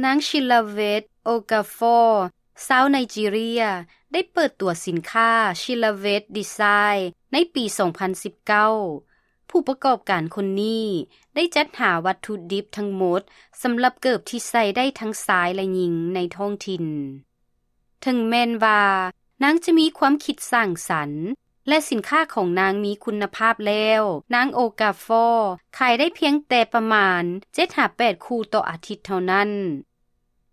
ນາງ ຊິລາເວັດ ໂອກາຟໍ ຊາວໄນຈີເຣຍ ໄດ້ເປີດຕົວສິນຄ້າ ຊິລາເວັດ ດີໄຊ ໃນປີສອງພັນສິບເກົ້າ. ຜູ້ປະກອບການຄົນນີ້ໄດ້ຈັດຫາວັດຖຸດິບທັງໝົດ ສຳລັບເກີບທີ່ໃສ່ໄດ້ທັງຊາຍ ແລະ ຍິງໃນທ້ອງຖິ່ນ. ເຖິງແມ່ນວ່ານາງຈະມີຄວາມຄິດສ້າງສັນ ແລະ ສິນຄ້າຂອງນາງມີຄຸນນະພາບແລ້ວ, ນາງ ໂອກາຟໍ ຂາຍໄດ້ພຽງແຕ່ປະມານເຈັດຫາແປດຄູ່ຕໍ່ອາທິດເທົ່ານັ້ນ.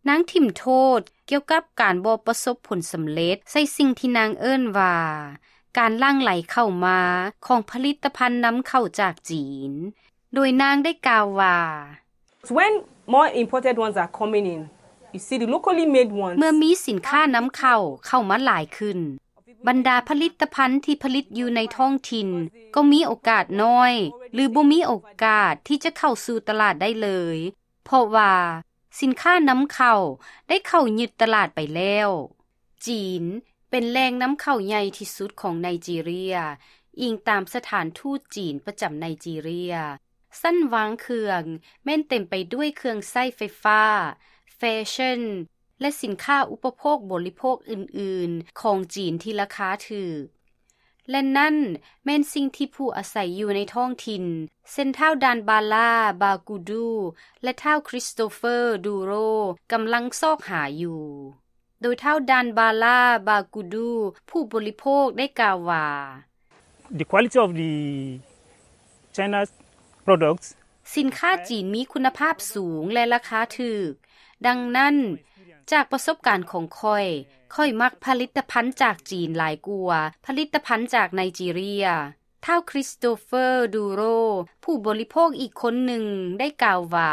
ນາງຖິ້ມໂທດກ່ຽວກັບການບໍ່ປະສົບຜົນສຳເລັດໃສ່ສິ່ງທີ່ນາງເອີ້ນວ່າ ການຫຼັ່ງໄຫຼເຂົ້າມາຂອງຜະລິດຕະພັນນຳເຂົ້າຈາກຈີນ, ໂດຍນາງໄດ້ກ່າວວ່າ When more imported ones are coming in, you see the locally made ones. ເມື່ອມີສິນຄ້ານຳເຂົ້າເຂົ້າມາຫຼາຍຂຶ້ນ, ບັນດາຜະລິດຕະພັນທີ່ຜະລິດຢູ່ໃນທ້ອງຖິ່ນກໍມີໂອກາດນ້ອຍ ຫຼື ບໍ່ມີໂອກາດທີ່ຈະເຂົ້າສູ່ຕະຫຼາດໄດ້ເລີຍ, ເພາະວ່າສິນຄ້ານຳເຂົ້າໄດ້ເຂົ້າຍຶດຕະຫຼາດໄປແລ້ວ. ຈີນເປັນແຫຼ່ງນຳເຂົ້າໃຫຍ່ທີ່ສຸດຂອງໄນຈີເຣຍ, ອີງຕາມສະຖານທູດຈີນປະຈຳໄນຈີເຣຍ. ຊັ້ນວາງເຄື່ອງແມ່ນເຕັມໄປດ້ວຍເຄື່ອງໃຊ້ໄຟຟ້າ, ແຟຊັ່ນ ແລະ ສິນຄ້າອຸປະໂພກບໍລິໂພກອື່ນໆຂອງຈີນທີ່ລາຄາຖືກ. ແລະ ນັ້ນແມ່ນສິ່ງທີ່ຜູ້ອາໄສຢູ່ໃນທ້ອງຖິ່ນ ເຊັ່ນ ທ້າວ ດານບາລາ ບາກູດູ ແລະ ທ້າວ ຄຣິສໂຕເຟີ ດູໂຣ ກຳລັງຊອກຫາຢູ່. ໂດຍທ້າວ ດານບາລາ ບາກູດູ ຜູ້ບໍລິໂພກໄດ້ກ່າວວ່າ The quality of the China's products. ສິນຄ້າຈີນມີຄຸນນະພາບສູງ ແລະ ລາຄາຖືກ. ດັ່ງນັ້ນ, ຈາກປະສົບການຂອງຂ້ອຍ, ຂ້ອຍມັກຜະລິດຕະພັນຈາກຈີນຫຼາຍກວ່າຜະລິດຕະພັນຈາກໄນຈີເຣຍ. ທ້າວ ຄຣິສໂຕເຟີ ດູໂຣ ຜູ້ບໍລິໂພກອີກຄົນໜຶ່ງໄດ້ກ່າວວ່າ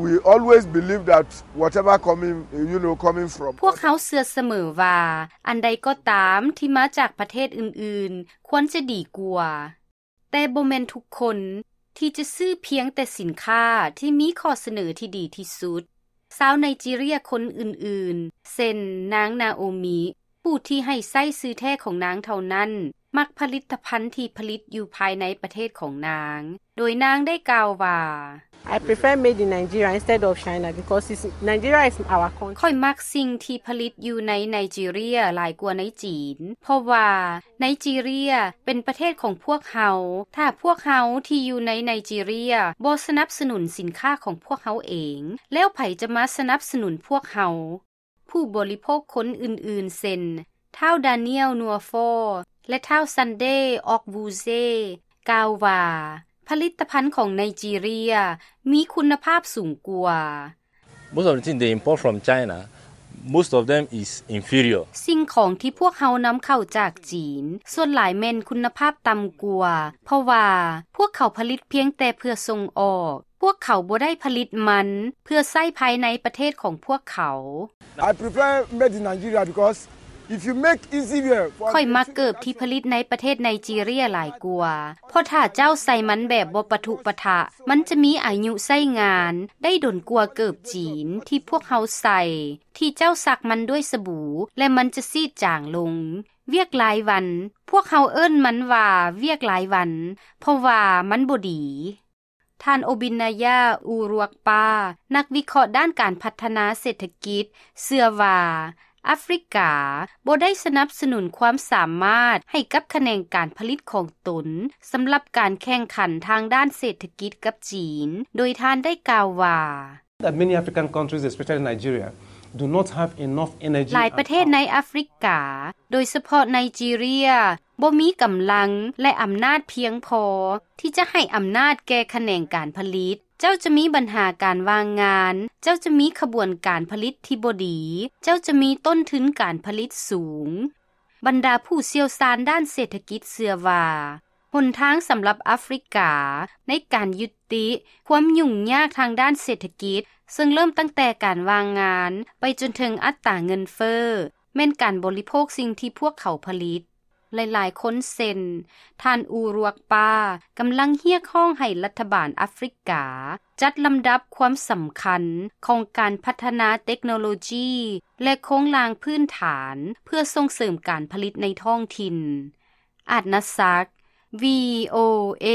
We always believe that whatever coming, you know, coming from ພວກເຮົາເຊື່ອສະເໝີວ່າ ອັນໃດກໍຕາມທີ່ມາຈາກປະເທດອື່ນໆ ຄວນຈະດີກວ່າ. ແຕ່ບໍ່ແມ່ນທຸກຄົນທີ່ຈະຊື້ພຽງແຕ່ສິນຄ້າທີ່ມີຂໍ້ສະເໜີທີ່ດີທີ່ສຸດ. ຊາວໄນຈີເຣຍຄົນອື່ນໆ ເຊັ່ນ ນາງ ນາໂອມິ ຜູ້ທີ່ໃຫ້ໃຊ້ຊື່ແທ້ຂອງນາງເທົ່ານັ້ນ, ມັກຜະລິດຕະພັນທີ່ຜະລິດຢູ່ພາຍໃນປະເທດຂອງນາງ, ໂດຍນາງໄດ້ກ່າວວ່າ I prefer made in Nigeria instead of China because it's, Nigeria is our country. ຂ້ອຍມັກສິ່ງທີ່ຜະລິດຢູ່ໃນໄນຈີເຣຍຫຼາຍກວ່າໃນຈີນ, ເພາະວ່າໄນຈີເຣຍເປັນປະເທດຂອງພວກເຮົາ. ຖ້າພວກເຮົາທີ່ຢູ່ໃນໄນຈີເຣຍບໍ່ສະໜັບສະໜູນສິນຄ້າຂອງພວກເຮົາເອງ, ແລ້ວໃຜຈະມາສະໜັບສະໜູນພວກເຮົາ? ຜູ້ບໍລິໂພກຄົນອື່ນໆ ເຊັ່ນ ທ້າວ ດານຽວ ນົວຟໍ ແລະ ທ້າວ ຊັນເດ ອອກບູເຊ ກ່າວວ່າ ຜະລິດຕະພັນຂອງໄນຈີເຣຍມີຄຸນນະພາບສູງກວ່າ. Most of the things they import from China, most of them is inferior. ສິ່ງຂອງທີ່ພວກເຮົານຳເຂົ້າຈາກຈີນ ສ່ວນຫຼາຍແມ່ນຄຸນນະພາບຕ່ຳກວ່າ, ເພາະວ່າພວກເຂົາຜະລິດພຽງແຕ່ເພື່ອສົ່ງອອກ. ພວກເຂົາບໍ່ໄດ້ຜະລິດມັນເພື່ອໃຊ້ພາຍໃນປະເທດຂອງພວກເຂົາ. I prefer made in Nigeria because if you make easy wear for ຂ້ອຍມັກເກີບທີ່ຜະລິດໃນປະເທດໄນຈີເຣຍຫຼາຍກວ່າ, ເພາະຖ້າເຈົ້າໃສ່ມັນແບບບໍ່ປະທຸປະທະ, ມັນຈະມີອາຍຸໃຊ້ງານໄດ້ດົນກວ່າເກີບຈີນທີ່ພວກເຮົາໃສ່, ທີ່ເຈົ້າຊັກມັນດ້ວຍສະບູ ແລະ ມັນຈະຊີດຈາງລົງ. ວຽກລາຍວັນ, ພວກເຮົາເອີ້ນມັນວ່າວຽກລາຍວັນ, ເພາະວ່າມັນບໍ່ດີ. ທ່ານ ໂອບິນນາຍາ ອູຣວກປາ ນັກວິເຄາະດ້ານການພັດທະນາເສດຖະກິດ ເຊື່ອວ່າ ອາຟຣິກາບໍ່ໄດ້ສະໜັບສະໜູນຄວາມສາມາດໃຫ້ກັບຂະແໜງການຜະລິດຂອງຕົນ ສຳລັບການແຂ່ງຂັນທາງດ້ານເສດຖະກິດກັບຈີນ, ໂດຍທ່ານໄດ້ກ່າວວ່າ That many African countries, especially Nigeria, do not have enough energy ຫຼາຍປະເທດໃນອາຟຣິກາ, ໂດຍສະເພາະໄນຈີເຣຍ, ບໍ່ມີກຳລັງ ແລະ ອຳນາດພຽງພໍທີ່ຈະໃຫ້ອຳນາດແກ່ຂະແໜງການຜະລິດ. ເຈົ້າຈະມີບັນຫາການວ່າງງານ, ເຈົ້າຈະມີຂະບວນການຜະລິດທີ່ບໍ່ດີ, ເຈົ້າຈະມີຕົ້ນທຶນການຜະລິດສູງ. ບັນດາຜູ້ຊ່ຽວຊານດ້ານເສດຖະກິດເຊື່ອວ່າ ຫົນທາງສຳລັບອາຟຣິກາໃນການຍຸຕິຄວາມຫຍຸ້ງຍາກທາງດ້ານເສດຖະກິດ, ເຊິ່ງເລີ່ມຕັ້ງແຕ່ການວ່າງງານໄປຈົນເຖິງອັດຕາເງິນເຟີ້, ແມ່ນການບໍລິໂພກສິ່ງທີ່ພວກເຂົາຜະລິດ. ຫຼາຍໆຄົນເຊັ່ນ ທ່ານ ອູຣວກປາ ກຳລັງຮຽກຮ້ອງໃຫ້ລັດຖະບານອາຟຣິກາຈັດລຳດັບຄວາມສຳຄັນຂອງການພັດທະນາເຕັກໂນໂລຢີ ແລະ ໂຄງລ່າງພື້ນຖານເພື່ອສົ່ງເສີມການຜະລິດໃນທ້ອງຖິ່ນ. ອາດນາສັກ, ວີໂອເອ.